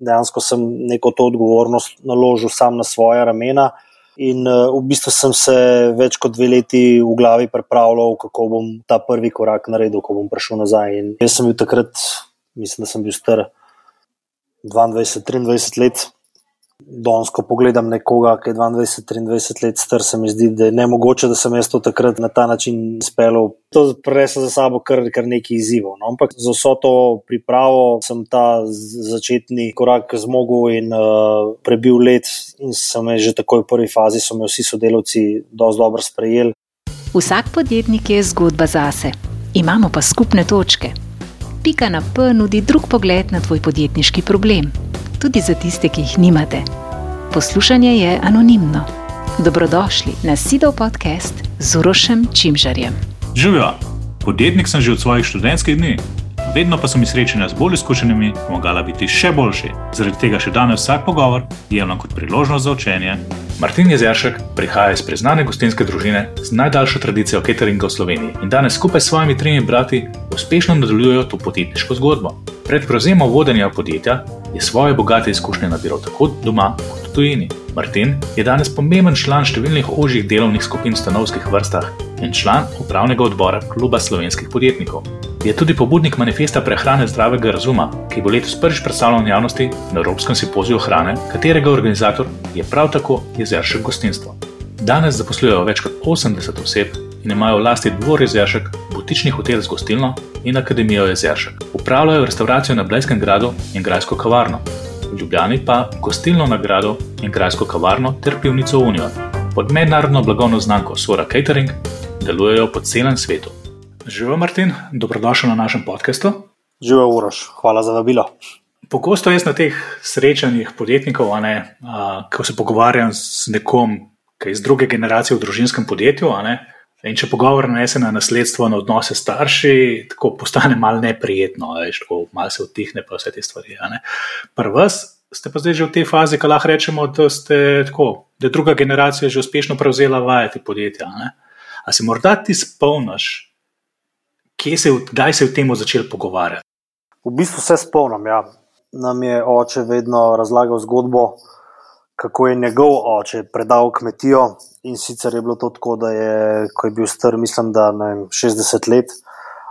dejansko sem neko to odgovornost naložil sam na svoja ramena in v bistvu sem se več kot 2 leti v glavi pripravljal, kako bom ta prvi korak naredil, ko bom prišel nazaj. In jaz sem bil takrat, mislim, da sem bil star 22-23 let. Danes, ko pogledam nekoga, ki je 22-23 let star, se mi zdi, da je nemogoče, da sem jaz to takrat na ta način izpeljal. To prineslo za sabo kar nekaj izzivov. No? Ampak za vso to pripravo sem ta začetni korak zmogel in prebil let in sem že takoj v prvi fazi, so me vsi sodelavci dosti dobro sprejeli. Vsak podjetnik je zgodba zase. Imamo pa skupne točke. Pika na P nudi drug pogled na tvoj podjetniški problem. Tudi za tiste, ki jih nimate. Poslušanje je anonimno. Dobrodošli na Sidov podcast z Urošem Čimžarjem. Živjo, podjetnik sem že od svojih študentskih dni. Vedno pa so mi srečanja z bolj izkušenimi pomagala biti še boljši. Zaradi tega še danes vsak pogovor jemljem kot priložnost za učenje. Martin Jezeršek prihaja iz priznane gostinske družine z najdaljšo tradicijo cateringa v Sloveniji in danes skupaj s svojimi 3 brati uspešno nadaljujejo to podjetniško zgodbo. Pred prevzemom vodenja podjetja je svoje bogate izkušnje nabiral tako doma kot v tujini. Martin je danes pomemben član številnih ožjih delovnih skupin v stanovskih vrstah in član upravnega odbora Kluba slovenskih podjetnikov. Je tudi pobudnik manifesta prehrane zdravega razuma, ki bo letos prvič predstavljen javnosti na Evropskem simpoziju hrane, katerega organizator je prav tako Jezeršek gostinstvo. Danes zaposlujejo več kot 80 oseb in imajo v lasti Dvor Jezeršek, butični hotel z gostilno in Akademijo Jezeršek. Upravljajo restauracijo na Blejskem gradu in grajsko kavarno. V Ljubljani pa gostilno na gradu in grajsko kavarno ter pivnico Unijo. Pod mednarodno blagovno znamko Sora Catering delujejo po celem svetu. Živijo Martin, dobrodošel na našem podcastu. Živijo Uroš, hvala za vabilo. Pogosto jaz na teh srečanjih podjetnikov, ko se pogovarjam z nekom, ki je iz druge generacije v družinskem podjetju, in če pogovor nanese na nasledstvo, na odnose s starši, tako postane malo neprijetno, tako malo se utihne pa vse te stvari. Pri vas ste pa zdaj že v tej fazi, ko lahko rečemo, da ste tako, da je druga generacija že uspešno prevzela vajeti podjetja. A se morda ti spomniš, kdaj se je v temu začel pogovarjati? V bistvu se spomnim, ja. Nam je oče vedno razlagal zgodbo, kako je njegov oče predal kmetijo in sicer je bilo to tako, da je, ko je bil star, mislim, da 60 let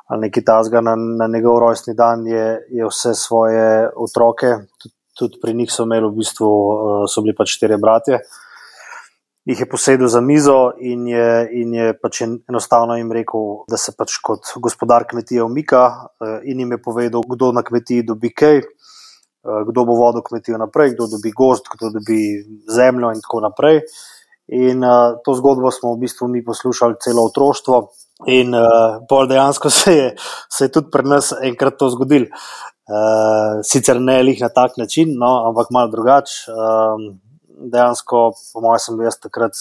ali nekaj takega, na njegov rojstni dan je vse svoje otroke, tudi pri njih so imeli v bistvu, so bili pač 4 bratje, jih je posedel za mizo in je pač enostavno jim rekel, da se pač kot gospodar kmetije umika in jim je povedal, kdo na kmetiji dobi kaj, kdo bo vodil kmetijo naprej, kdo dobi gozd, kdo dobi zemljo in tako naprej. In to zgodbo smo v bistvu mi poslušali celo otroštvo in pol dejansko se je tudi pri nas enkrat to zgodilo. Sicer ne lih na tak način, no, ampak malo drugače. Dejansko, po mojem sem bil jaz takrat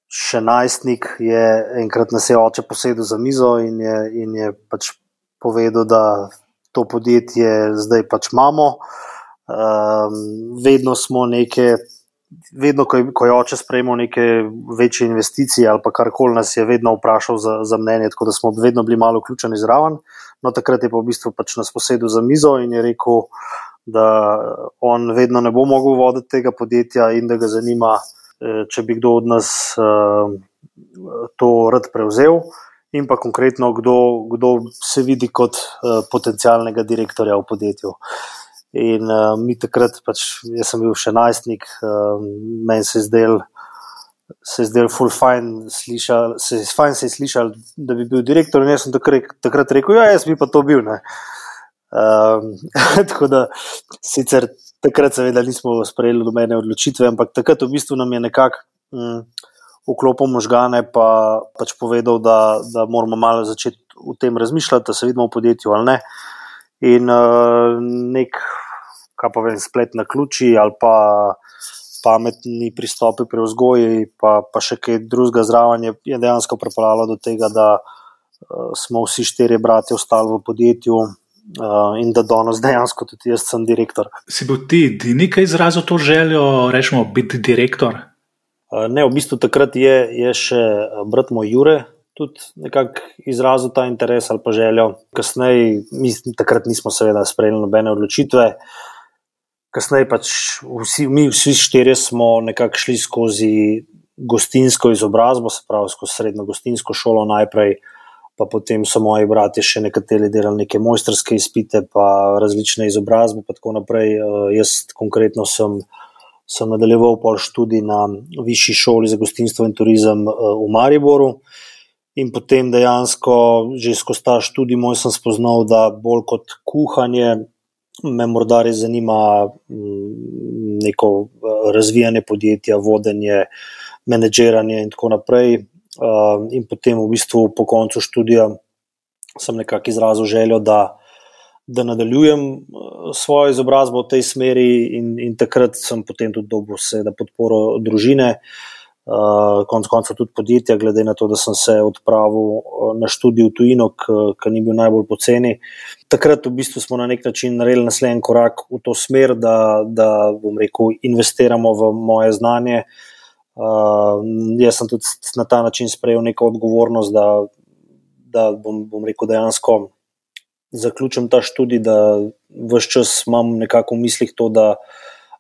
še najstnik, je enkrat nas je oče posedel za mizo in je pač povedal, da to podjetje zdaj pač imamo. Vedno ko je oče sprejemal neke večje investicije ali pa karkoli, nas je vedno vprašal za mnenje, tako da smo vedno bili malo vključeni zraven. No, takrat je pa v bistvu pač nas posedel za mizo in je rekel, da on vedno ne bo mogel voditi tega podjetja in da ga zanima, če bi kdo od nas to rad prevzel in pa konkretno kdo se vidi kot potencialnega direktorja v podjetju. In mi takrat, pač jaz sem bil še najstnik, meni se je zdel ful fajn se je slišal, da bi bil direktor in jaz sem takrat rekel, ja, jaz bi pa to bil, ne. Tako da sicer takrat seveda nismo sprejeli nobene odločitve, ampak takrat v bistvu nam je nekako vklopil možgane pa pač povedal, da moramo malo začeti v tem razmišljati, da se vidimo v podjetju ali ne. In nek, kaj pa vem, splet na ključi ali pa pametni pristopi pri vzgoji pa še kaj drugega zraven je dejansko pripeljalo do tega, da smo vsi 4 bratje ostali v podjetju in da danes dejansko tudi jaz sem direktor. Si bil ti nekaj izrazil to željo, rečemo, biti direktor? Ne, v bistvu takrat je še brat moj Jure tudi nekako izrazil ta interes ali pa željo. Kasneje, mi takrat nismo seveda sprejeli nobene odločitve. kasneje pač vsi štirje smo nekako šli skozi gostinsko izobrazbo, se pravi skozi srednjo gostinsko šolo najprej, pa potem so moji bratje še nekateri delali neke mojstrske izpite, pa različne izobrazbe, pa tako naprej. Jaz konkretno sem nadaljeval pol študij na Višji šoli za gostinstvo in turizem v Mariboru in potem dejansko že skozi ta študij moj sem spoznal, da bolj kot kuhanje me morda res zanima neko razvijanje podjetja, vodenje, menedžiranje in tako naprej. In potem v bistvu po koncu študija sem nekako izrazil željo, da nadaljujem svojo izobrazbo v tej smeri in takrat sem potem tudi dobil seveda podporo družine, konec koncev tudi podjetja, glede na to, da sem se odpravil na študij v tujino, ki ni bil najbolj poceni. Takrat v bistvu smo na nek način naredili naslednji korak v to smer, da bom rekel, investiramo v moje znanje. Jaz sem tudi na ta način sprejel neko odgovornost, da bom rekel dejansko zaključim ta študij, da ves čas imam nekako v mislih to, da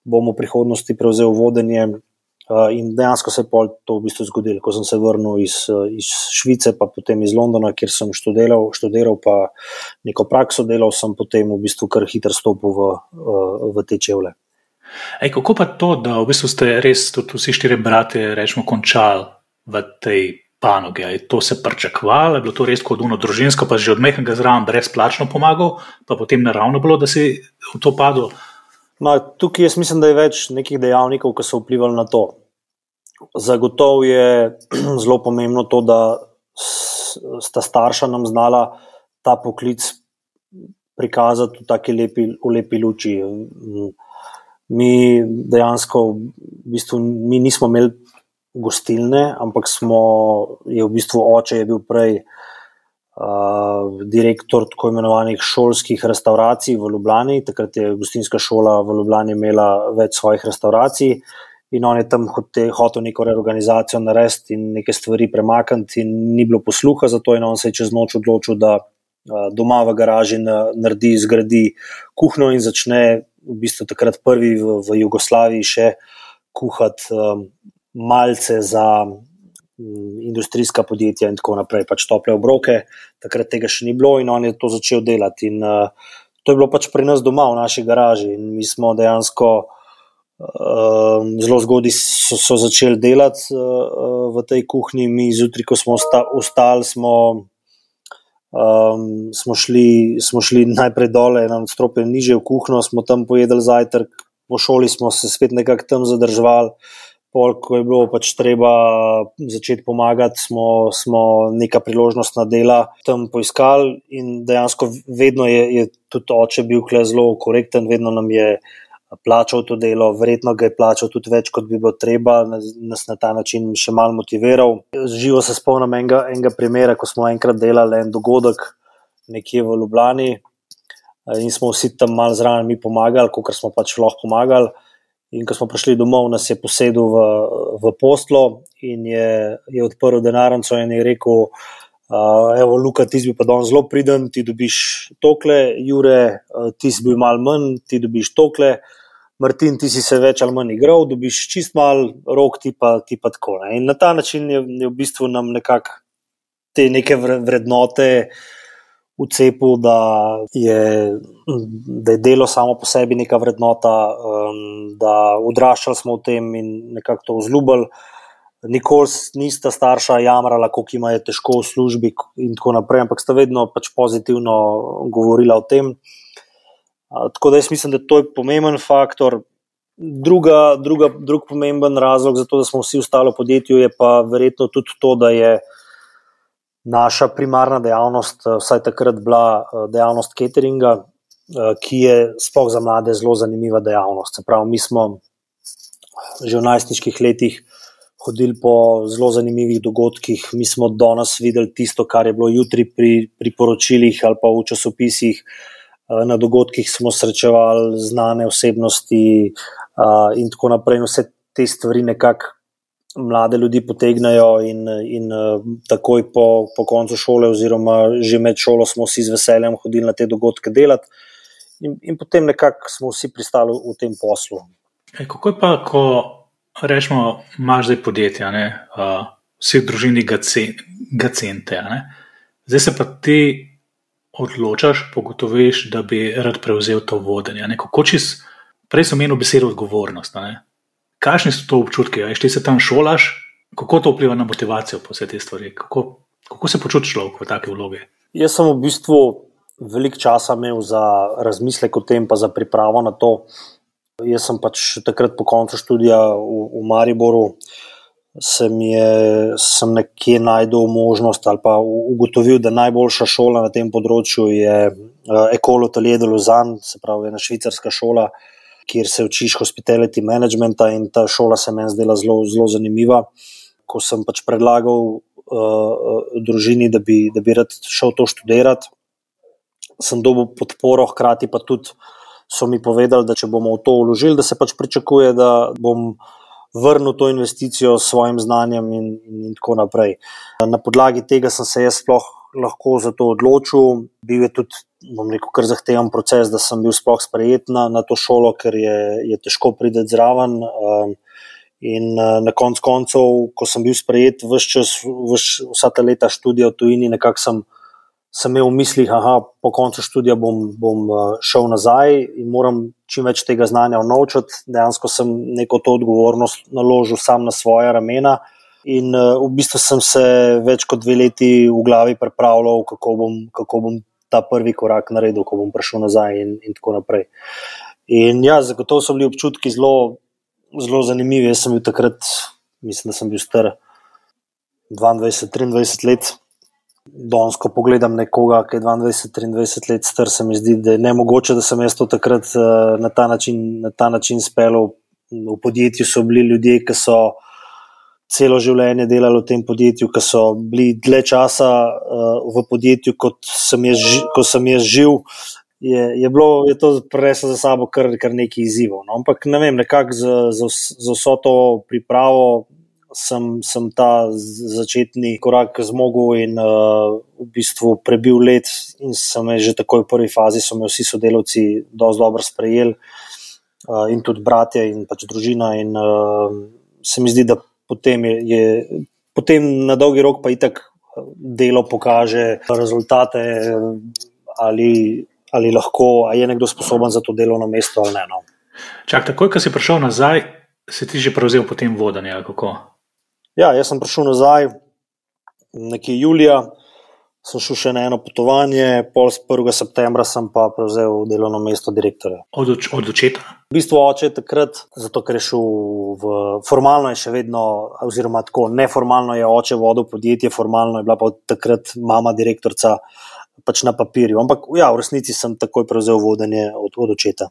bom v prihodnosti prevzel vodenje in dejansko se je pol to v bistvu zgodilo. Ko sem se vrnil iz Švice, pa potem iz Londona, kjer sem študiral pa neko prakso delal, sem potem v bistvu kar hitro stopil v te čevlje. Kako pa to, da v bistvu ste res tudi vsi štiri bratje rečemo končali v tej panogi? Je to se pričakovalo? Je bilo to res kot ono družinsko, pa že od mehkega zraven brezplačno pomagal, pa potem naravno bilo, da si v to padel? Tukaj jaz mislim, da je več nekih dejavnikov, ki so vplivali na to. Zagotovo je zelo pomembno to, da sta starša nam znala ta poklic prikazati v lepi luči. Mi dejansko v bistvu mi nismo imeli gostilne, ampak je v bistvu oče je bil prej direktor tako imenovanih šolskih restauracij v Ljubljani. Takrat je gostinska šola v Ljubljani imela več svojih restauracij in on je tam hotel neko reorganizacijo narediti in neke stvari premakniti in ni bilo posluha za to in on se je čez noč odločil, da doma v garaži zgradi kuhinjo in začne v bistvu takrat prvi v Jugoslaviji še kuhati malce za industrijska podjetja in tako naprej, pač tople obroke, takrat tega še ni bilo in on je to začel delati in to je bilo pač pri nas doma v naši garaži in mi smo dejansko zelo zgodaj so začeli delati v tej kuhinji. Mi zjutraj, ko smo vstali, smo šli najprej dole, eno nadstropje nižje v kuhinjo, smo tam pojedli zajtrk, po šoli smo se spet nekako tam zadrževali, pol, ko je bilo pač treba začeti pomagati, smo neka priložnostna dela tam poiskali in dejansko vedno je tudi oče bil kle zelo korekten, vedno nam je plačal to delo, verjetno ga je plačal tudi več, kot bi bilo treba, nas na ta način še malo motiviral. Živo se spomnim enega primera, ko smo enkrat delali en dogodek nekje v Ljubljani in smo vsi tam malo zraven mi pomagali, kakor smo pač lahko pomagali. In ko smo prišli domov, nas je posedel v posteljo in je odprl denarnico in je rekel, evo Luka, ti si bil pa danes zelo priden, ti dobiš tokle, Jure, ti si bil malo manj, ti dobiš tokle, Martin, ti si se več ali manj igral, dobiš čist malo, Rok, ti pa tako. Ne? In na ta način je v bistvu nam nekako te neke vrednote vcepil, da je delo samo po sebi neka vrednota, da odraščali smo v tem in nekako to vzljubili. Nikoli nista starša jamrala, koliko ima je težko v službi in tako naprej, ampak sta vedno pač pozitivno govorila o tem. Tako da jaz mislim, da to je pomemben faktor. Drug pomemben razlog za to, da smo vsi ostali v podjetju, je pa verjetno tudi to, da je naša primarna dejavnost vsaj takrat bila dejavnost cateringa, ki je sploh za mlade zelo zanimiva dejavnost. Se pravi, mi smo že v najstniških letih hodili po zelo zanimivih dogodkih, mi smo danes videli tisto, kar je bilo jutri pri poročilih ali pa v časopisih. Na dogodkih smo srečevali znane osebnosti in tako naprej. Vse te stvari nekako mlade ljudi potegnajo in takoj po koncu šole oziroma že med šolo smo vsi z veseljem hodili na te dogodke delati. in potem nekako smo vsi pristali v tem poslu. Kako je pa, ko rečemo, imaš zdaj podjetja, vsi v družini gacente, zdaj se pa ti odločaš, pogotoviš, da bi rad prevzel to vodenje. Prej sem omenil besedo odgovornost. Kakšni so to občutki? Ti se tam šolaš, kako to vpliva na motivacijo po vse te stvari? Kako se počutiš človek v take vloge? Jaz sem v bistvu veliko časa imel za razmislek o tem, pa za pripravo na to. Jaz sem pač takrat po koncu študija v Mariboru sem nekje najdel možnost ali pa ugotovil, da najboljša šola na tem področju je École Hôtelier de Lausanne, se pravi ena švicarska šola, kjer se učiš hospitality managementa, in ta šola se meni zdela zelo, zelo zanimiva. Ko sem pač predlagal družini, da bi rad šel to študirati, sem dobil podporo, hkrati pa tudi so mi povedali, da če bomo v to vložili, da se pač pričakuje, da bom vrnil to investicijo s svojim znanjem in tako naprej. Na podlagi tega sem se jaz sploh lahko za to odločil. Bil je tudi, bom rekel, kar zahteven proces, da sem bil sploh sprejet na to šolo, ker je težko priti zraven. In na koncu koncev, ko sem bil sprejet vsa ta leta študija v tujini, nekako sem imel v mislih, po koncu študija bom šel nazaj in moram čim več tega znanja vnovčati. Dejansko sem neko to odgovornost naložil sam na svoja ramena in v bistvu sem se več kot 2 leti v glavi pripravljal, kako bom ta prvi korak naredil, ko bom prišel nazaj in tako naprej. In ja, zagotovo so bili občutki zelo, zelo zanimivi. Jaz sem bil takrat, mislim, da sem bil star 22-23 let. Danes, ko pogledam nekoga, ki je 22-23 let star, se mi zdi, da je nemogoče, da sem jaz to takrat na ta način speljal. V podjetju so bili ljudje, ki so celo življenje delali v tem podjetju, ki so bili dlje časa v podjetju, kot sem jaz živ. Je to prineslo za sabo kar nekaj izzivov. No? Ampak ne vem, nekako za vso to pripravo sem ta začetni korak zmogel in v bistvu prebil let in sem že takoj v prvi fazi so me vsi sodelavci dosti dobro sprejeli in tudi bratje in pač družina in se mi zdi, da potem na dolgi rok pa itak delo pokaže rezultate ali lahko, a je nekdo sposoben za to delovno mesto ali ne. No. Čak, takoj, ko si prišel nazaj, si ti že prevzel potem vodenje, ali kako? Ja, jaz sem prišel nazaj nekje julija, sem šel še na eno potovanje, pol 1. septembra sem pa prevzel delovno mesto direktorja. Od očeta? V bistvu oče takrat, zato ker je šel formalno je še vedno, oziroma tako, neformalno je oče vodil podjetje, formalno je bila pa takrat mama direktorca pač na papirju. Ampak ja, v resnici sem takoj prevzel vodenje od očeta.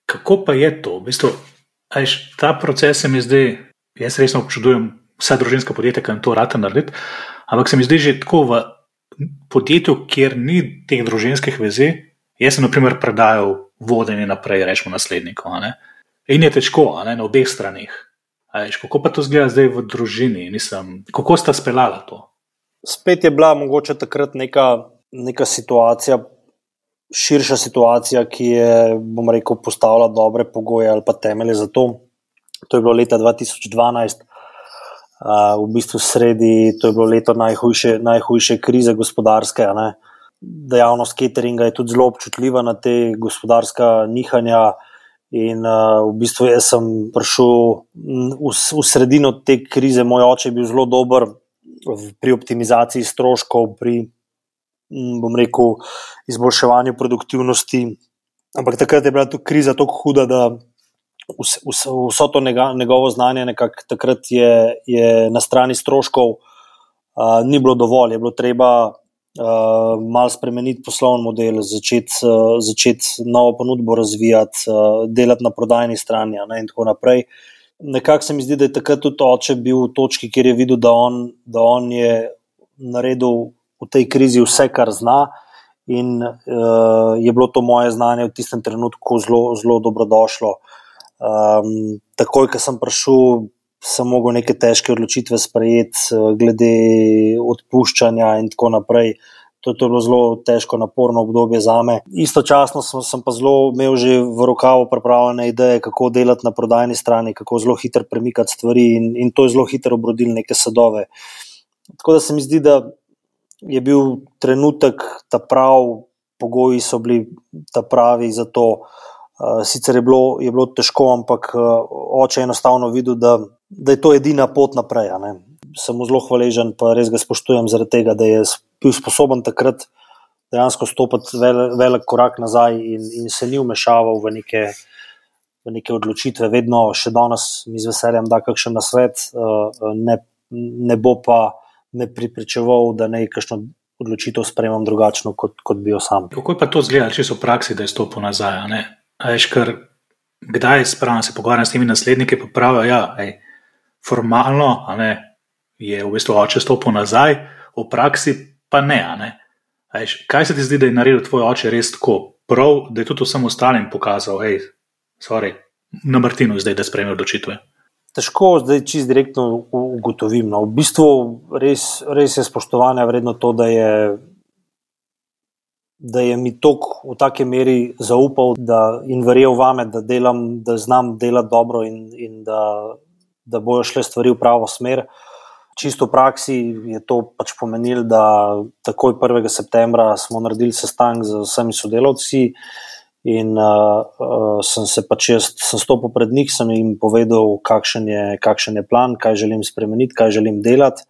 Kako pa je to? V bistvu, ta proces se mi zdi, jaz resno občudujem vsa družinska podjetja, ki to rata narediti, ampak se mi zdi že tako v podjetju, kjer ni teh družinskih vezi, jaz sem na primer predajal vodenje naprej, rečemo nasledniku. In je težko, na obeh stranih. Kako pa to zgleda zdaj v družini? Kako sta speljala to? Spet je bila mogoče takrat neka situacija, širša situacija, ki je, bom rekel, postavila dobre pogoje ali pa temelje za to. To je bilo leta 2012, v bistvu sredi, to je bilo leto najhujše krize gospodarske. Dejavnost cateringa je tudi zelo občutljiva na te gospodarska nihanja in v bistvu jaz sem prišel v sredino te krize. Moj oče je bil zelo dober pri optimizaciji stroškov, pri, bom rekel, izboljševanju produktivnosti, ampak takrat je bila tu kriza tako huda, da vso to njegovo znanje nekako takrat je na strani stroškov ni bilo dovolj, je bilo treba malo spremeniti poslovni model, začeti novo ponudbo razvijati, delati na prodajni strani in tako naprej. Nekako se mi zdi, da je takrat tudi oče bil v točki, kjer je videl, da on je naredil v tej krizi vse, kar zna in je bilo to moje znanje v tistem trenutku zelo, zelo dobrodošlo. Takoj, ko sem prišel, sem mogel neke težke odločitve sprejeti glede odpuščanja in tako naprej. to je bilo zelo težko, naporno obdobje zame. Istočasno sem pa zelo imel že v rokavu pripravljene ideje, kako delati na prodajni strani, kako zelo hitro premikati stvari in to je zelo hitro obrodilo neke sadove. Tako da se mi zdi, da je bil trenutek ta prav, pogoji so bili ta pravi za to. Sicer je bilo težko, ampak oče je enostavno videl, da je to edina pot naprej. Sem mu zelo hvaležen, pa res ga spoštujem zaradi tega, da je bil sposoben takrat dejansko stopiti velik korak nazaj in se ni vmešaval v neke odločitve. Vedno še danes mi z veseljem da kakšen nasvet, ne bo pa me pripričeval, da naj kakšno odločitev sprejemam drugačno, kot bi jo sam. Kako je pa to izgledalo, če so v praksi, da je stopil nazaj? Ker kdaj spravno se pogovarjam s temi nasledniki, pa pravijo, formalno je v bistvu oče stopil nazaj, v praksi pa ne. Kaj se ti zdi, da je naredil tvoj oče res tako prav, da je tudi vsem ostalim pokazal, na Martinu zdaj, da sprejme odločitve? Težko zdaj čisto direktno ugotovim. V bistvu res je spoštovanja vredno to, da je mi toliko v taki meri zaupal in verjel vame, da znam delati dobro in da bojo šle stvari v pravo smer. Čisto v praksi je to pač pomenilo, da takoj 1. septembra smo naredili sestanek z vsemi sodelavci in sem stopil pred njih, sem jim povedal, kakšen je plan, kaj želim spremeniti, kaj želim delati.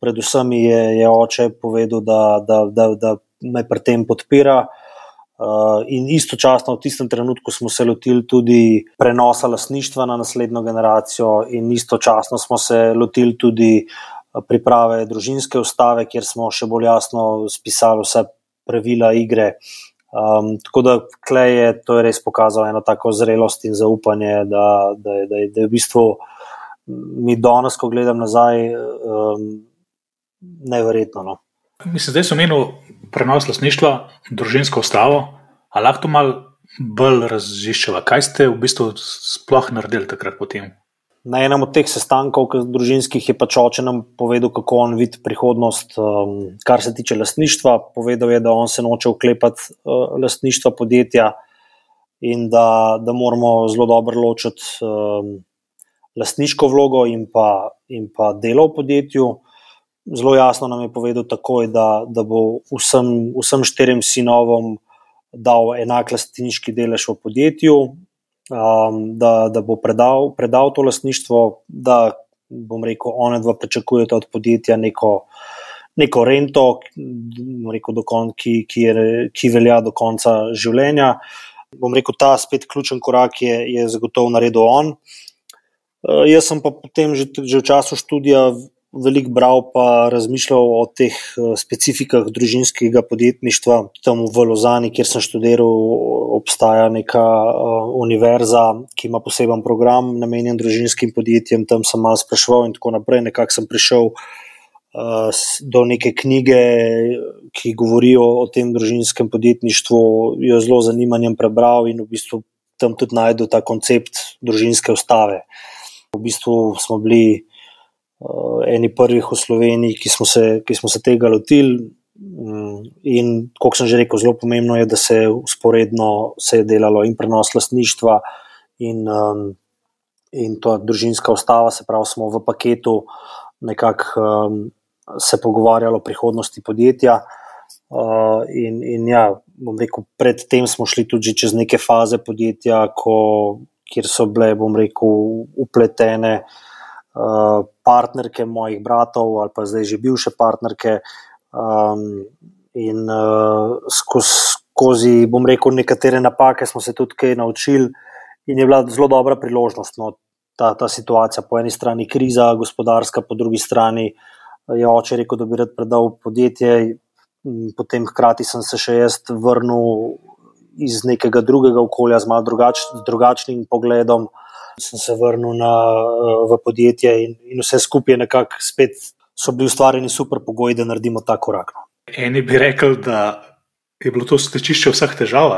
Predvsem je oče povedal, da me pri tem podpira in istočasno v tistem trenutku smo se lotili tudi prenosa lastništva na naslednjo generacijo in istočasno smo se lotili tudi priprave družinske ustave, kjer smo še bolj jasno spisali vse pravila igre. Tako da to je res pokazalo eno tako zrelost in zaupanje, da je v bistvu mi danes, ko gledam nazaj, neverjetno. Mislim, zdaj sem omenil prenos lastništva, družinsko ustavo, a lahko to malo bolj raziščeva. Kaj ste v bistvu sploh naredili takrat potem? Na enem od teh sestankov družinskih je pač oče nam povedal, kako on vidi prihodnost, kar se tiče lastništva. Povedal je, da on se noče vklepati lastništva podjetja in da moramo zelo dobro ločiti lastniško vlogo in pa delo v podjetju. Zelo jasno nam je povedal takoj, da bo vsem 4 sinovom dal enak lastniški delež v podjetju, da bo predal to lastništvo, da, bom rekel, one dva pričakujeta od podjetja neko rento, ki velja do konca življenja. Bom rekel, ta spet ključen korak je zagotovo naredil on. Jaz sem pa potem že v času študija veliko bral pa razmišljal o teh specifikah družinskega podjetništva. Tam v Lozani, kjer sem študiral, obstaja neka univerza, ki ima poseben program namenjen družinskim podjetjem. Tam sem malo spraševal in tako naprej. Nekako sem prišel do neke knjige, ki govorijo o tem družinskem podjetništvu, jo zelo zanimanjem prebral in v bistvu tam tudi najdel ta koncept družinske ustave. V bistvu smo bili eni prvih v Sloveniji, ki smo se tega lotili in, kot sem že rekel, zelo pomembno je, da se usporedno se je delalo in prenos lastništva in to družinska ustava, se pravi, smo v paketu nekako se pogovarjali o prihodnosti podjetja in ja, bom rekel, predtem smo šli tudi čez neke faze podjetja, kjer so bile, bom rekel, upletene partnerke mojih bratov ali pa zdaj že bivše partnerke in skozi, bom rekel, nekatere napake smo se tudi kaj naučili in je bila zelo dobra priložnost. Ta situacija, po eni strani kriza gospodarska, po drugi strani je oče rekel, da bi rad predal podjetje, potem hkrati sem se še jaz vrnil iz nekega drugega okolja z malo drugačnim pogledom. Sem se vrnil v podjetje in vse skupaj nekako spet so bili ustvarjeni super pogoji, da naredimo ta korak. Eni bi rekel, da je bilo to stečišče vseh težav,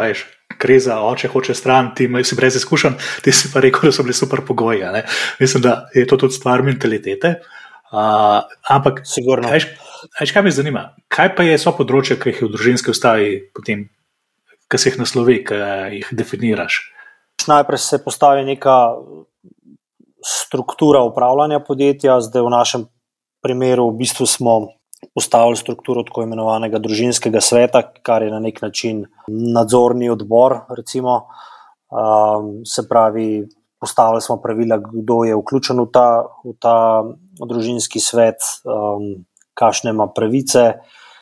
kriza, oče hoče stran, ti si brez izkušenj, ti si pa rekel, da so bili super pogoji. Mislim, da je to tudi stvar mentalitete. Ampak Kaj me zanima? Kaj pa so področja, ki jih v družinski ustavi potem, ki se jih naslovi, ki jih definiraš? Najprej se postavi neka struktura upravljanja podjetja, zdaj v našem primeru v bistvu smo postavili strukturo tako imenovanega družinskega sveta, kar je na nek način nadzorni odbor, recimo. Se pravi, postavili smo pravila, kdo je vključen v ta družinski svet, kakšne ima pravice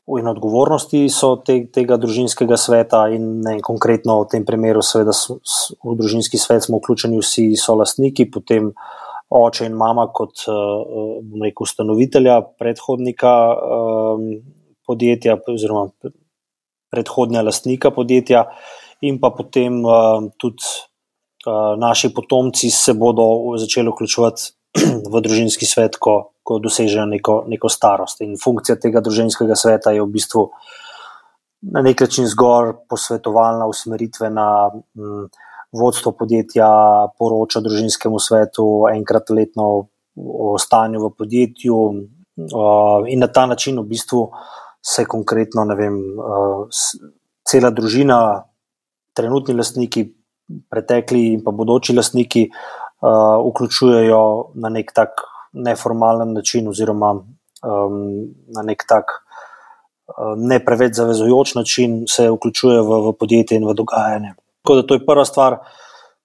in odgovornosti so tega družinskega sveta in konkretno v tem primeru seveda v družinski svet smo vključeni vsi solastniki, potem oče in mama kot ustanovitelja, predhodnika podjetja oziroma predhodnega lastnika podjetja in pa potem tudi naši potomci se bodo začeli vključevati v družinski svet, ko dosežejo neko starost. In funkcija tega družinskega sveta je v bistvu na nek način zgolj posvetovalna, usmeritvena. Vodstvo podjetja poroča družinskemu svetu enkrat letno o stanju v podjetju in na ta način v bistvu se konkretno, cela družina, trenutni lastniki, pretekli in pa bodoči lastniki vključujejo na nek tak neformalen način oziroma na nek tak ne preveč zavezujoč način se vključujejo v podjetje in v dogajanje. Tako da to je prva stvar.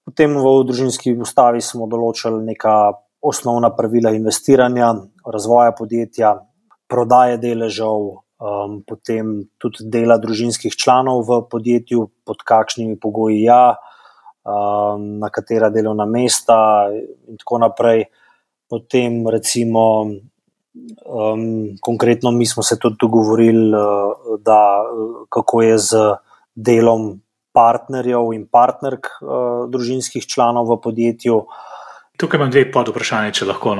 Potem v družinski ustavi smo določili neka osnovna pravila investiranja, razvoja podjetja, prodaje deležev, potem tudi dela družinskih članov v podjetju, pod kakšnimi pogoji na katera delovna mesta in tako naprej. Potem recimo konkretno mi smo se tudi dogovorili, da kako je z delom partnerjev in partnerk družinskih članov v podjetju. Tukaj imam dve podvprašanje, če lahko.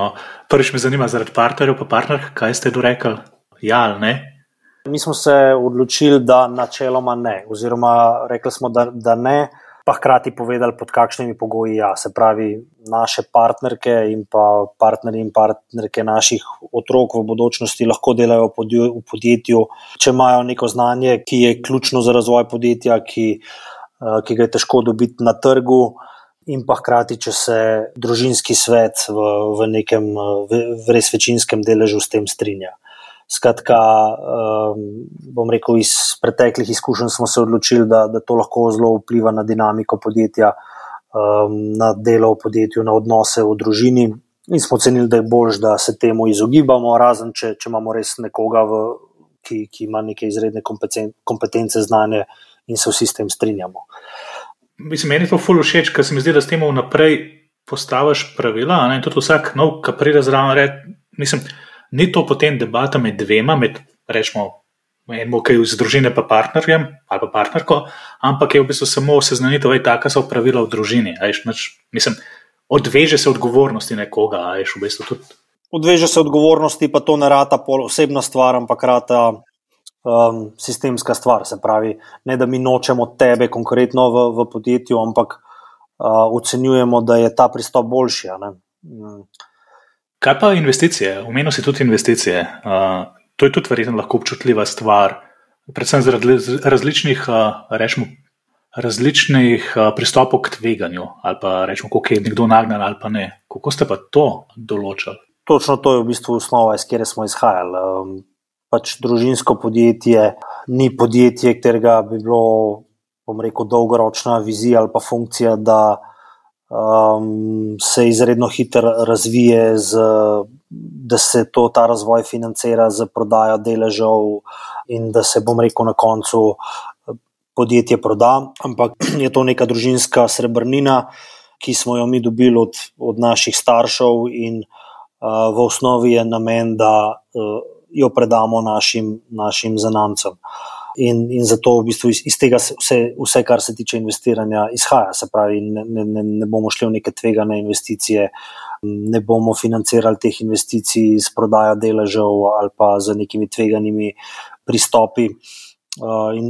Prvič me zanima zaradi partnerjev pa partnerk, kaj ste dorekli? Ja ali ne? Mi smo se odločili, da načeloma ne, oziroma rekli smo, da ne, pa hkrati povedali, pod kakšnimi pogoji Se pravi, naše partnerke in pa partnerji in partnerke naših otrok v bodočnosti lahko delajo v podjetju, če imajo neko znanje, ki je ključno za razvoj podjetja, ki ga je težko dobiti na trgu, in pa hkrati, če se družinski svet v nekem res večinskem deležu s tem strinja. Skratka, bom rekel, iz preteklih izkušenj smo se odločili, da to lahko zelo vpliva na dinamiko podjetja, na delo v podjetju, na odnose v družini in smo ocenili, da je boljše, da se temu izogibamo, razen če imamo res nekoga, ki ima neke izredne kompetence, znanje in se vsi s tem strinjamo. Mislim, meni je to ful všeč, ker se mi zdi, da s tem vnaprej postaviš pravila, in tudi vsak nov, ki pride zraven, mislim, ni to potem debata med dvema, rečemo, enemu, ki je iz družine pa partnerjem ali pa partnerko, ampak je v bistvu samo seznanitev, taka so pravila v družini. Mislim, odveže se odgovornosti nekoga, v bistvu tudi. Odveže se odgovornosti, pa to ne rata osebna stvar, ampak rata sistemska stvar. Se pravi, ne da mi nočemo tebe konkretno v podjetju, ampak ocenjujemo, da je ta pristop boljši. Kaj pa investicije? Omenil si tudi investicije. To je tudi verjetno lahko občutljiva stvar, predvsem zaradi različnih pristopov k tveganju, ali pa rečemo, koliko je nekdo nagnan ali pa ne. Kako ste pa to določili? Točno to je v bistvu osnova, iz kjer smo izhajali. Družinsko podjetje ni podjetje, katerega bi bilo, bom rekel, dolgoročna vizija ali pa funkcija, da se izredno hitro razvije, da se ta razvoj financira z prodajo deležev in da se, bom rekel, na koncu podjetje proda, ampak je to neka družinska srebrnina, ki smo jo mi dobili od naših staršev in v osnovi je namen, da jo predamo našim zanamcem. In zato v bistvu iz tega vse, kar se tiče investiranja, izhaja. Se pravi, ne bomo šli v neke tvegane investicije, ne bomo financirali teh investicij s prodajo deležev ali pa z nekimi tveganimi pristopi.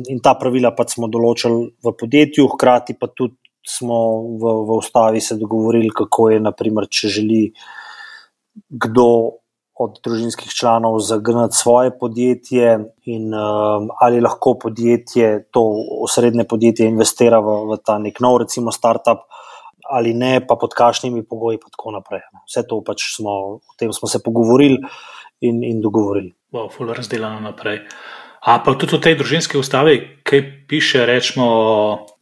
In ta pravila pač smo določili v podjetju, hkrati pa tudi smo v ustavi se dogovorili, kako je, naprimer, če želi kdo od družinskih članov zagnati svoje podjetje in ali lahko podjetje, to osrednje podjetje investira v ta nek nov, recimo startup, ali ne, pa pod kakšnimi pogoji pa tako naprej. Vse to pač o tem smo se pogovorili in dogovorili. Ful razdeljeno naprej. A pa tudi v tej družinski ustavi, kaj piše, rečemo,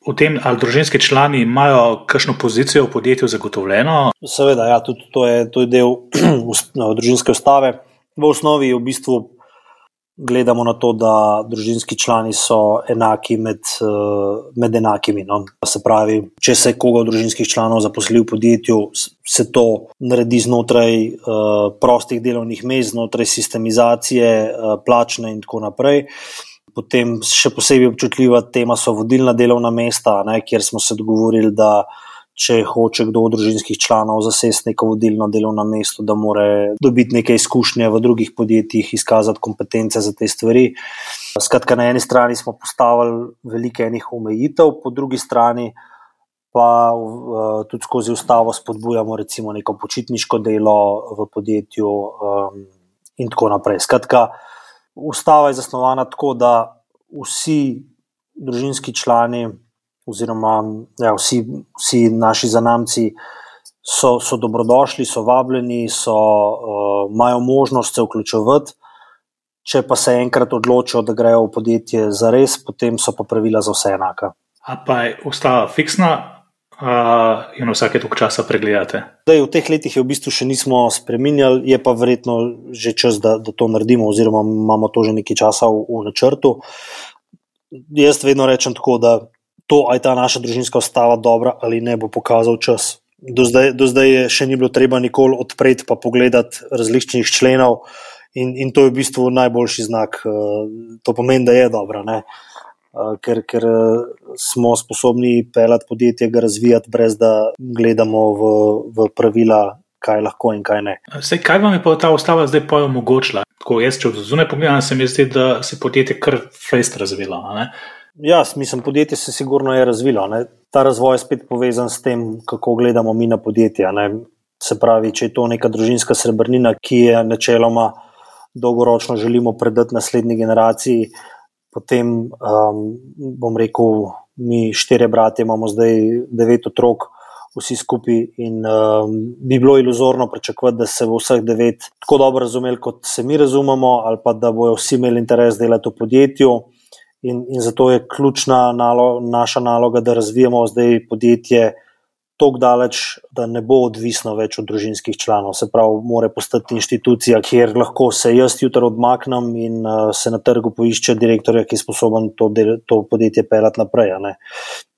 o tem, ali družinski člani imajo kakšno pozicijo v podjetju zagotovljeno? Seveda, ja, tudi to je del družinske ustave. V osnovi v bistvu gledamo na to, da družinski člani so enaki med enakimi. No. Se pravi, če se koga od družinskih članov zaposli v podjetju, se to naredi znotraj prostih delovnih mest, znotraj sistemizacije, plačne in tako naprej. Potem še posebej občutljiva tema so vodilna delovna mesta, kjer smo se dogovorili, da če hoče kdo od družinskih članov zasesti neko vodilno delovno mesto, da mora dobiti neke izkušnje v drugih podjetjih, izkazati kompetence za te stvari. Skratka, na eni strani smo postavili velike enih omejitev, po drugi strani pa tudi skozi ustavo spodbujamo recimo neko počitniško delo v podjetju in tako naprej. Skratka, ustava je zasnovana tako, da vsi družinski člani oziroma vsi naši zanamci so dobrodošli, so vabljeni, imajo možnost se vključevati. Če pa se enkrat odločijo, da grejo v podjetje zares, potem so pa pravila za vse enaka. A pa je ustava fiksna in vsake toliko časa pregledate? V teh letih je v bistvu še nismo spreminjali, je pa verjetno že čas, da to naredimo, oziroma imamo to že nekaj časa v načrtu. Jaz vedno rečem tako, da to, ali je ta naša družinska ustava dobra ali ne, bo pokazal čas. Do zdaj je še ni bilo treba nikoli odpreti pa pogledati različnih členov in to je v bistvu najboljši znak. To pomeni, da je dobra, ne? Ker smo sposobni peljati podjetje, ga razvijati, brez da gledamo v pravila, kaj lahko in kaj ne. Kaj vam je pa ta ustava zdaj omogočila? Tako jaz, če od zunaj pogledam, se mi zdi, da se podjetje kar fejst razvilo, ne? Ja, mislim, podjetje se sigurno je razvilo. Ne? Ta razvoj je spet povezan s tem, kako gledamo mi na podjetja. Ne? Se pravi, če je to neka družinska srebrnina, ki je načeloma dolgoročno želimo predati naslednji generaciji, potem bom rekel, mi 4 bratje imamo zdaj 9 otrok, vsi skupaj in bi bilo iluzorno pričakovati, da se bo vseh 9 tako dobro razumeli, kot se mi razumemo, ali pa da bojo vsi imeli interes delati v podjetju. In zato je ključna naša naloga, da razvijamo zdaj podjetje toliko daleč, da ne bo odvisno več od družinskih članov. Se pravi, mora postati inštitucija, kjer lahko se jaz jutri odmaknem in se na trgu poišče direktorja, ki je sposoben to podjetje peljati naprej.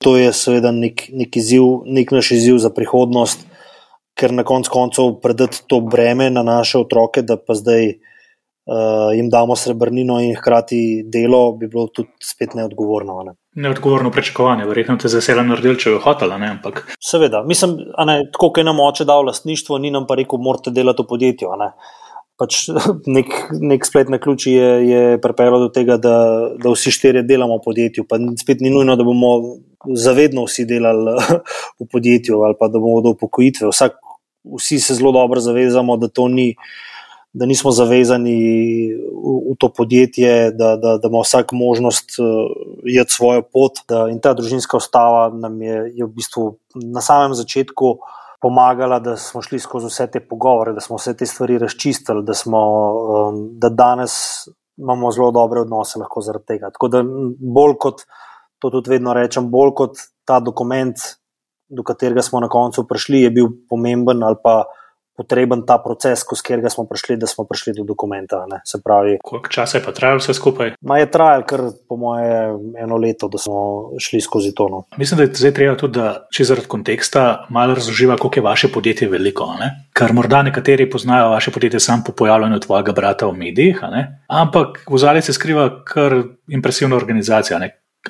To je seveda nek naš izziv za prihodnost, ker na koncu predati to breme na naše otroke, da pa zdaj jim damo srebrnino in hkrati delo, bi bilo tudi spet neodgovorno. Neodgovorno pričakovanje, verjetno te zasela naredil, če je hotela, ne? Ampak seveda, mislim, tako, kot je nam oče dal lastništvo, ni nam pa rekel, morate delati v podjetju. Pač nek splet na ključi je pripeljal do tega, da vsi 4 delamo v podjetju, pa spet ni nujno, da bomo zavedno vsi delali v podjetju ali pa da bomo do upokojitve. Vsi se zelo dobro zavezamo, da nismo zavezani v to podjetje, da ima vsak možnost iti svojo pot. In ta družinska ustava nam je v bistvu na samem začetku pomagala, da smo šli skozi vse te pogovore, da smo vse te stvari razčistili, da danes imamo zelo dobre odnose lahko zaradi tega. Tako da bolj kot, to tudi vedno rečem, bolj kot ta dokument, do katerega smo na koncu prišli, je bil pomemben ali pa potreben ta proces, skozi katerega smo prišli, da smo prišli do dokumenta. Se pravi, koliko časa je pa trajalo vse skupaj? Je trajalo kar po moje 1 leto, da smo šli skozi to. Mislim, da je zdaj treba tudi, da če zaradi konteksta malo razloživa, koliko je vaše podjetje veliko. Ker morda nekateri poznajo vaše podjetje samo po pojavljanju tvojega brata v medijih, ampak v ozadju se skriva kar impresivna organizacija.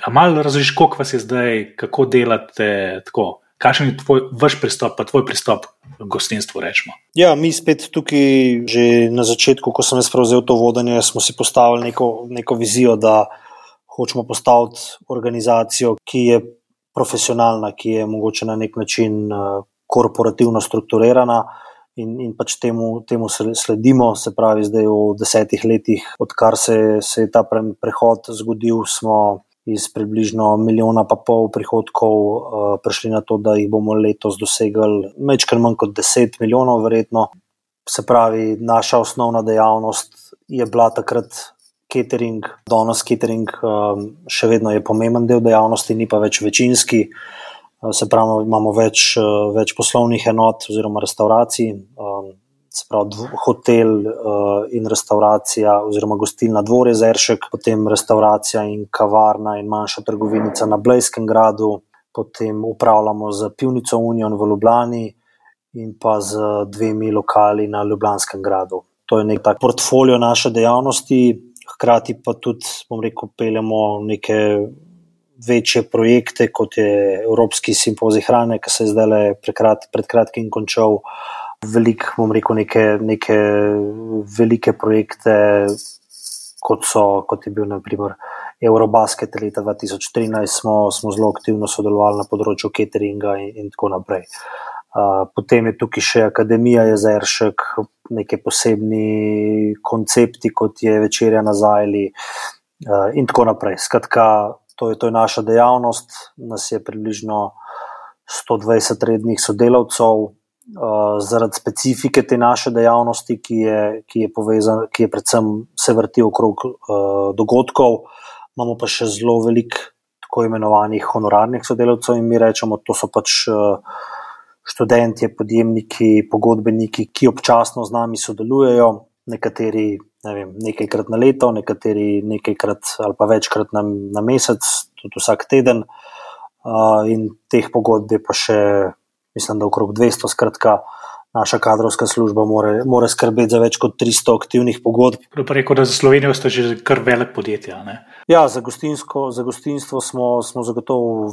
A malo razložiš, koliko vas je zdaj, kako delate tako? Kakšen je vaš pristop, pa tvoj pristop k gostinstvu, rečemo? Ja, mi spet tukaj že na začetku, ko sem jaz prevzel to vodenje, smo si postavili neko vizijo, da hočemo postaviti organizacijo, ki je profesionalna, ki je mogoče na nek način korporativno strukturirana in pač temu sledimo. Se pravi, zdaj v 10 letih, odkar se je ta prehod zgodil, smo iz približno 1,5 milijona prihodkov prišli na to, da jih bomo letos dosegli majčkeno manj kot 10 milijonov verjetno. Se pravi, naša osnovna dejavnost je bila takrat catering, danes catering še vedno je pomemben del dejavnosti, ni pa več večinski. Se pravi, imamo več poslovnih enot oziroma restauracij, se pravi hotel in restauracija oziroma gostilna Dvorje Zeršek, potem restauracija in kavarna in manjša trgovinica na Blejskem gradu, potem upravljamo z pivnico Union v Ljubljani in pa z 2 lokali na Ljubljanskem gradu. To je nek tak portfolio naše dejavnosti, hkrati pa tudi, bom rekel, peljemo neke večje projekte, kot je Evropski simpozij hrane, ki se je zdaj pred kratkim končal. Veliko, bom rekel, neke velike projekte, kot je bil na primer Eurobasket leta 2013, smo zelo aktivno sodelovali na področju cateringa in tako naprej. Potem je tukaj še Akademija Jezeršek, neke posebni koncepti, kot je večerja na Zajli in tako naprej. Skratka, to je naša dejavnost, nas je približno 120 rednih sodelavcev. Zaradi specifike te naše dejavnosti, ki je predvsem se vrti okrog dogodkov, imamo pa še zelo veliko tako imenovanih honorarnih sodelavcev in mi rečemo, to so pač študentje, podjemniki, pogodbeniki, ki občasno z nami sodelujejo, nekateri nekajkrat na leto, nekateri nekajkrat ali pa večkrat na mesec, tudi vsak teden, in teh pogodb je pa še, mislim, da okrog 200, skratka, naša kadrovska služba mora skrbeti za več kot 300 aktivnih pogodb. Pa rekel, da za Slovenijo ste že kar velik podjetja, ne? Ja, za gostinstvo smo zagotovo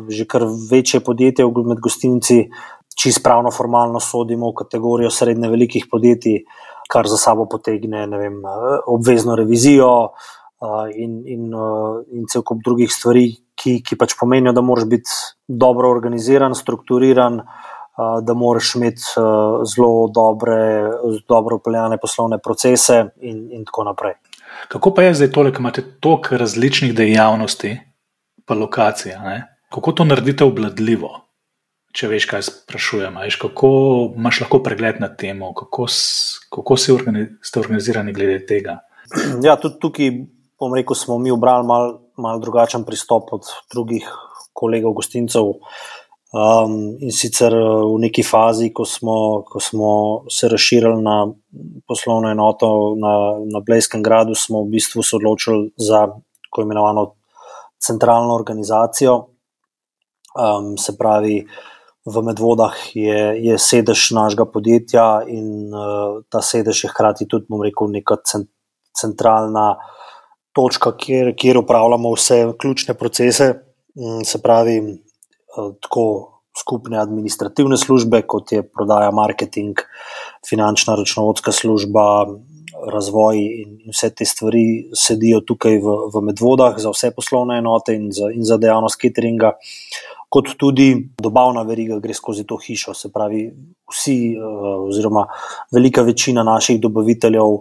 že kar večje podjetje, med gostinci čisto pravno formalno sodimo v kategorijo srednje velikih podjetij, kar za sabo potegne, obvezno revizijo in cel kup drugih stvari, ki pač pomenijo, da moraš biti dobro organiziran, strukturiran, da moraš imeti zelo dobro peljane poslovne procese in tako naprej. Kako pa je zdaj tole, ko imate toliko različnih dejavnosti pa lokacij, ne? Kako to naredite obvladljivo? Če veš, kaj sprašujem, kako imaš lahko pregled nad tem, kako ste organizirani glede tega? Ja, tudi tukaj, bom rekel, smo mi obrali malo drugačen pristop od drugih kolegov gostincev. In sicer v neki fazi, ko smo se razširili na poslovno enoto na Blejskem gradu, smo v bistvu se odločili za tako imenovano centralno organizacijo. Se pravi, v Medvodah je sedež našega podjetja in ta sedež je hkrati tudi, bom rekel, neka centralna točka, kjer upravljamo vse ključne procese, se pravi, tako skupne administrativne službe, kot je prodaja, marketing, finančna računovodska služba, razvoj in vse te stvari sedijo tukaj v Medvodah za vse poslovne enote in za dejavnost cateringa, kot tudi dobavna veriga gre skozi to hišo. Se pravi, vsi oziroma velika večina naših dobaviteljev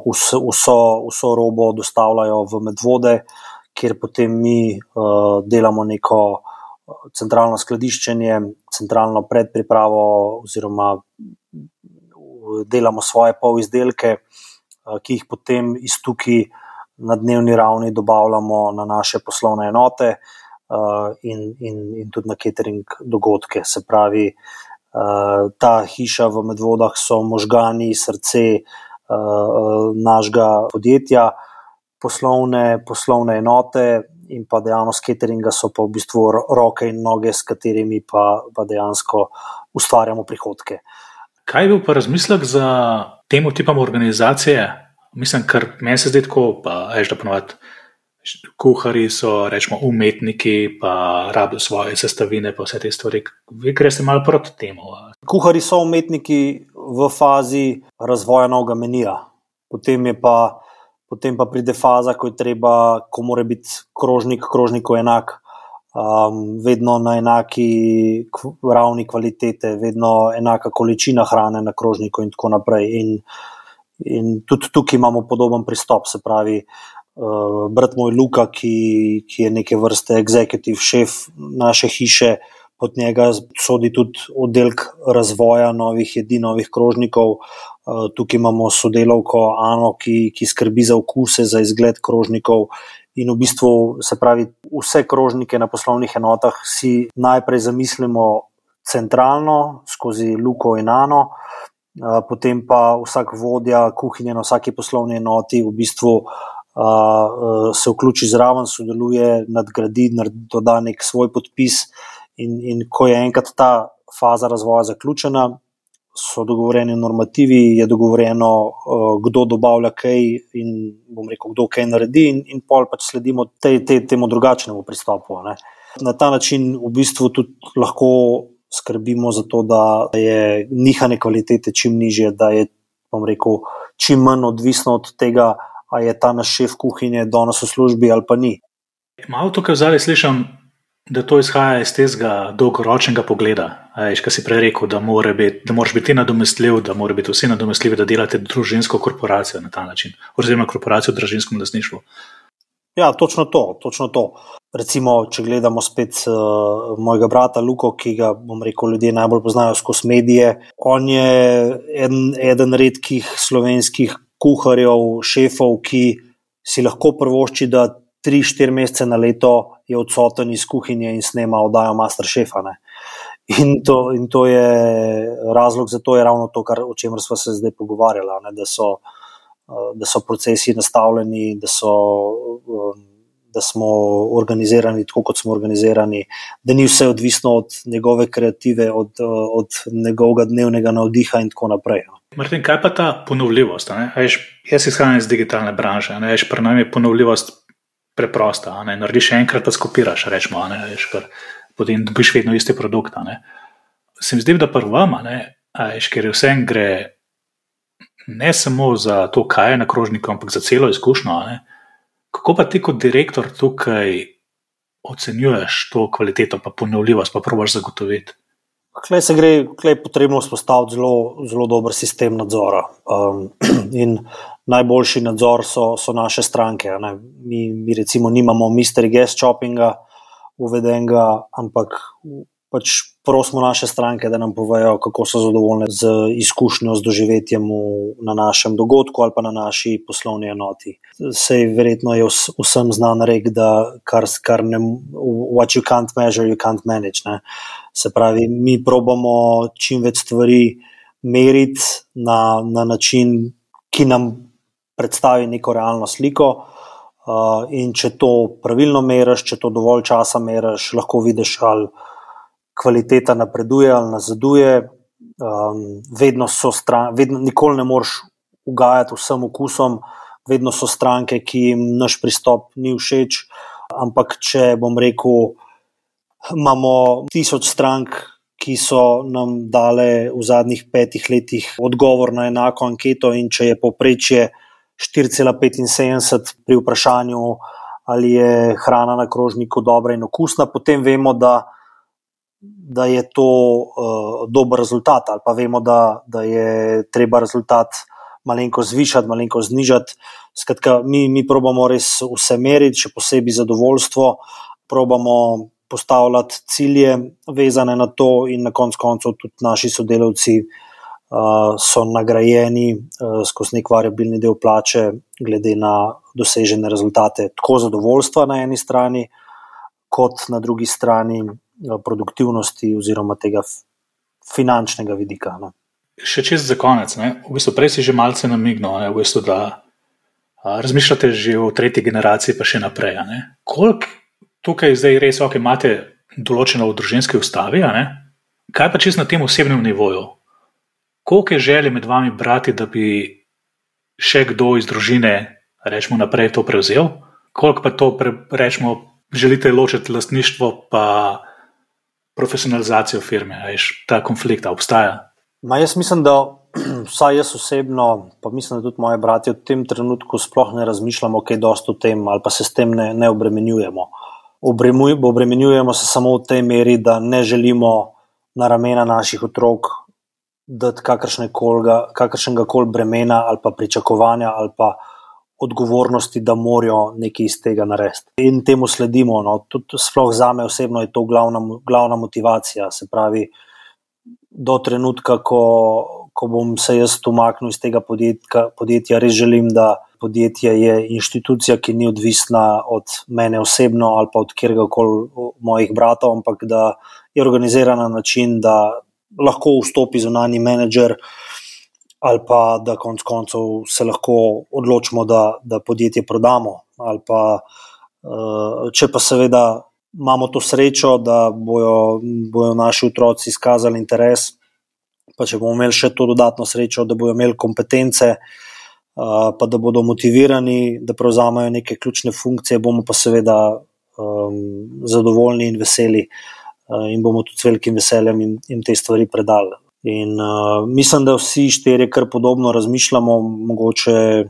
vso robo dostavljajo v Medvode, kjer potem mi delamo neko centralno skladiščenje, centralno predpripravo oziroma delamo svoje polizdelke, ki jih potem iz tukaj na dnevni ravni dobavljamo na naše poslovne enote in tudi na catering dogodke. Se pravi, ta hiša v Medvodah so možgani, srce našega podjetja, poslovne enote in pa dejavnost cateringa so pa v bistvu roke in noge, s katerimi pa dejansko ustvarjamo prihodke. Kaj je bil pa razmislek za temu tipom organizacije? Mislim, ker meni se zdi tako, pa da ponovadi kuharji so, rečemo, umetniki, pa rabijo svoje sestavine, pa vse te stvari. Vi greste malo proti temu. Kuharji so umetniki v fazi razvoja novega menija. Potem pa pride faza, ko mora biti krožniku enak, vedno na enaki ravni kvalitete, vedno enaka količina hrane na krožniku in tako naprej. In tudi tukaj imamo podoben pristop, se pravi, brat moj Luka, ki je neke vrste executive šef naše hiše, pod njega sodi tudi oddelek razvoja novih jedi, novih krožnikov. Tukaj imamo sodelavko Ano, ki skrbi za okuse, za izgled krožnikov. In v bistvu, se pravi, vse krožnike na poslovnih enotah si najprej zamislimo centralno, skozi Luko in Ano, potem pa vsak vodja kuhinje na vsaki poslovni enoti v bistvu se vključi zraven, sodeluje, nadgradi, doda nek svoj podpis. In ko je enkrat ta faza razvoja zaključena, so dogovorjeni normativi, je dogovorjeno, kdo dobavlja kaj in bom rekel, kdo kaj naredi in pol pač sledimo temu drugačnemu pristopu. Ne. Na ta način v bistvu tudi lahko skrbimo za to, da je nihanje kvalitete čim nižje, da je, bom rekel, čim manj odvisno od tega, a je ta naš šef kuhinje danes v službi ali pa ni. Malo tukaj vzali slišam, da to izhaja iz tega dolgoročnega pogleda. Kaj si prej rekel, da moraš biti nadomestljiv, da mora biti vsi nadomestljivi, da delate družinsko korporacijo na ta način, oziroma korporacijo v družinskem lastništvu. Ja, točno to. Recimo, če gledamo spet mojega brata Luko, ki ga, bom rekel, ljudje najbolj poznajo skozi medije, on je eden redkih slovenskih kuharjev, šefov, ki si lahko privošči, da 3-4 mesece na leto je odsoten iz kuhinje in snema oddajo Masterchefa. Ne? In to je razlog za to, je ravno to, o čemer sva se zdaj pogovarjala, ne? Da so procesi nastavljeni, da smo organizirani tako, kot smo organizirani, da ni vse odvisno od njegove kreative, od njegovega dnevnega navdiha in tako naprej. Martin, kaj pa ta ponovljivost? Jaz izhajam iz digitalne branže, pri nam je ponovljivost preprosta, narediš enkrat, pa skopiraš, rečemo, potem dobiš vedno isti produkt. Se mi zdi, da pri vam, ker vsem gre ne samo za to, kaj je na krožniku, ampak za celo izkušnjo. Kako pa ti kot direktor tukaj ocenjuješ to kvaliteto, pa ponovljivost, pa probaš zagotoviti? Klej je potrebno vzpostaviti zelo dober sistem nadzora. In najboljši nadzor so naše stranke. Mi recimo nimamo mystery guest shoppinga uvedenega, ampak pač prosimo naše stranke, da nam povejo, kako so zadovoljne z izkušnjo, z doživetjem na našem dogodku ali pa na naši poslovni enoti. Sej verjetno je vsem znan rek, da what you can't measure, you can't manage. Ne? Se pravi, mi probamo čim več stvari meriti na način, ki nam predstavi neko realno sliko, in če to pravilno meriš, če to dovolj časa meriš, lahko vidiš, ali kvaliteta napreduje ali nazaduje. Vedno nikoli ne moreš ugajati vsem okusom, vedno so stranke, ki jim naš pristop ni všeč, ampak če bom rekel, imamo 1000 strank, ki so nam dale v zadnjih 5 letih odgovor na enako anketo, in če je povprečje 4,75 pri vprašanju, ali je hrana na krožniku dobra in okusna, potem vemo, da je to dober rezultat, ali pa vemo, da je treba rezultat malenko zvišati, malenko znižati. Skratka, mi probamo res vse meriti, še posebej zadovoljstvo, probamo postavljati cilje vezane na to in na koncu tudi naši sodelavci so nagrajeni skozi nek variabilni del plače glede na dosežene rezultate, tako zadovoljstva na eni strani, kot na drugi strani produktivnosti oziroma tega finančnega vidika. Ne. Še čez za konec, v bistvu prej si že malce namignil, v bistvu, da razmišljate že o 3. generaciji pa še naprej. Koliko tukaj zdaj res imate določeno v družinski ustavi, kaj pa čisto na tem osebnem nivoju? Koliko je želje med vami brati, da bi še kdo iz družine, rečemo, naprej to prevzel? Koliko pa to, rečemo, želite ločiti lastništvo pa profesionalizacijo firme? Ta konflikt obstaja? Jaz mislim, da vsaj jaz osebno, pa mislim, da tudi moji bratje v tem trenutku sploh ne razmišljamo kaj dosti o tem ali pa se s tem ne obremenjujemo. obremenjujemo se samo v tej meri, da ne želimo na ramena naših otrok dati kakršnega koli bremena ali pa pričakovanja ali pa odgovornosti, da morajo nekaj iz tega narediti. In temu sledimo. No. Tudi sploh zame osebno je to glavna motivacija. Se pravi, do trenutka, ko bom se jaz umaknil iz tega podjetja, res želim, da podjetje je inštitucija, ki ni odvisna od mene osebno ali pa od kjerkoli mojih bratov, ampak da je organizirana na način, da lahko vstopi zunanji menedžer ali pa da konec koncev se lahko odločimo, da podjetje prodamo. Ali pa, če pa seveda imamo to srečo, da bojo naši otroci izkazali interes, pa če bomo imeli še to dodatno srečo, da bojo imeli kompetence, pa da bodo motivirani, da prevzamejo neke ključne funkcije, bomo pa seveda zadovoljni in veseli in bomo tudi s velikim veseljem jim te stvari predali. In mislim, da vsi štirje kar podobno razmišljamo, mogoče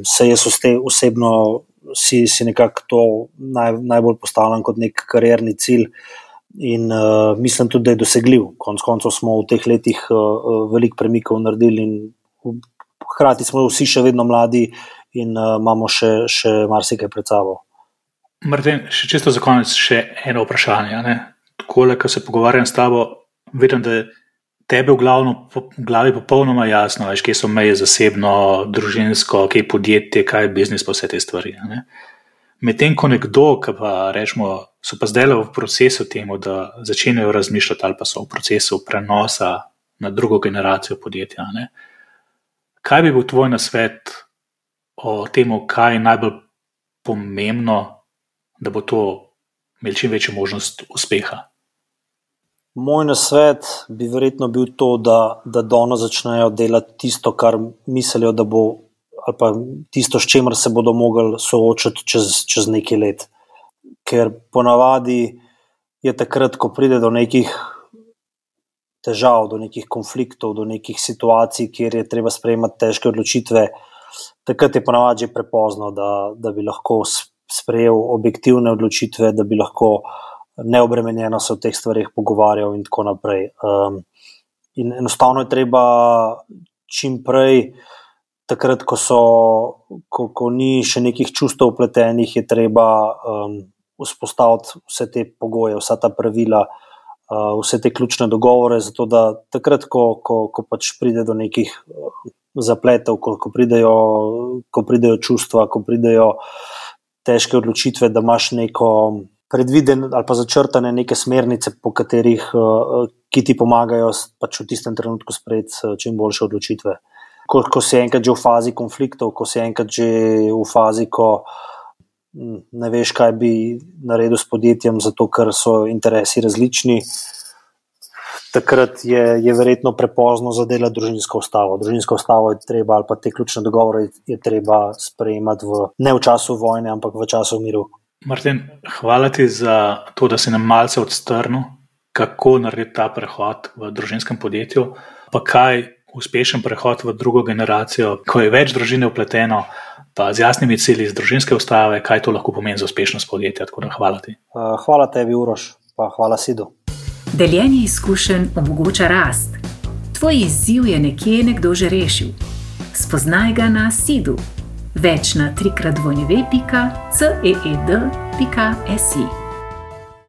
se jaz osebno si nekako to najbolj postavljam kot nek karierni cilj in mislim tudi, da je dosegljiv. Konec koncev smo v teh letih veliko premikov naredili in hkrati smo vsi še vedno mladi in imamo še marsikaj pred sabo. Martin, še čisto za konec še eno vprašanje. Takole, ko se pogovarjam s tabo, vidim, da je tebe v glavi popolnoma jasno, veš, kje so meje zasebno, družinsko, kje je podjetje, kaj je biznis, pa vse te stvari. Medtem ko nekdo, ki pa rečemo, so pa zdaj v procesu temu, da začenjajo razmišljati ali pa so v procesu prenosa na drugo generacijo podjetja. Kaj bi bil tvoj nasvet o temu, kaj je najbolj pomembno, da bo to imel čim večjo možnost uspeha? Moj nasvet bi verjetno bil to, da danes začnejo delati tisto, kar mislijo, da bo, ali pa tisto, s čemer se bodo mogli soočati čez nekaj let. Ker ponavadi je takrat, ko pride do nekih težav, do nekih konfliktov, do nekih situacij, kjer je treba sprejemati težke odločitve, takrat je ponavadi že prepozno, da bi lahko sprejel objektivne odločitve, da bi lahko neobremenjeno se o teh stvarih pogovarjal in tako naprej. In enostavno je treba čim prej, takrat, ko ni še nekih čustev vpletenih, je treba vzpostaviti vse te pogoje, vsa ta pravila, vse te ključne dogovore, zato da takrat, ko pač pride do nekih zapletov, ko pridejo čustva, ko pridejo težke odločitve, da imaš neko predviden ali pa začrtane neke smernice, po katerih, ki ti pomagajo pač v tistem trenutku sprejeti čim boljše odločitve. Ko si enkrat že v fazi konfliktov, ko si enkrat že v fazi, ko ne veš, kaj bi naredil s podjetjem, zato ker so interesi različni, takrat je verjetno prepozno za delati družinsko ustavo. Družinsko ustavo je treba, ali pa te ključne dogovore je treba sprejemati ne v času vojne, ampak v času miru. Martin, hvala ti za to, da si nam malce odstrnil, kako narediti ta prehod v družinskem podjetju, pa kaj uspešen prehod v drugo generacijo, ko je več družine vpleteno, pa z jasnimi cilji iz družinske ustave, kaj to lahko pomeni za uspešnost podjetja. Tako da hvala ti. Hvala tebi, Uroš, pa hvala Sidu. Deljenje izkušenj omogoča rast. Tvoj izziv je nekdo že rešil. Spoznaj ga na Sidu. Več na 3x2.ceed.si.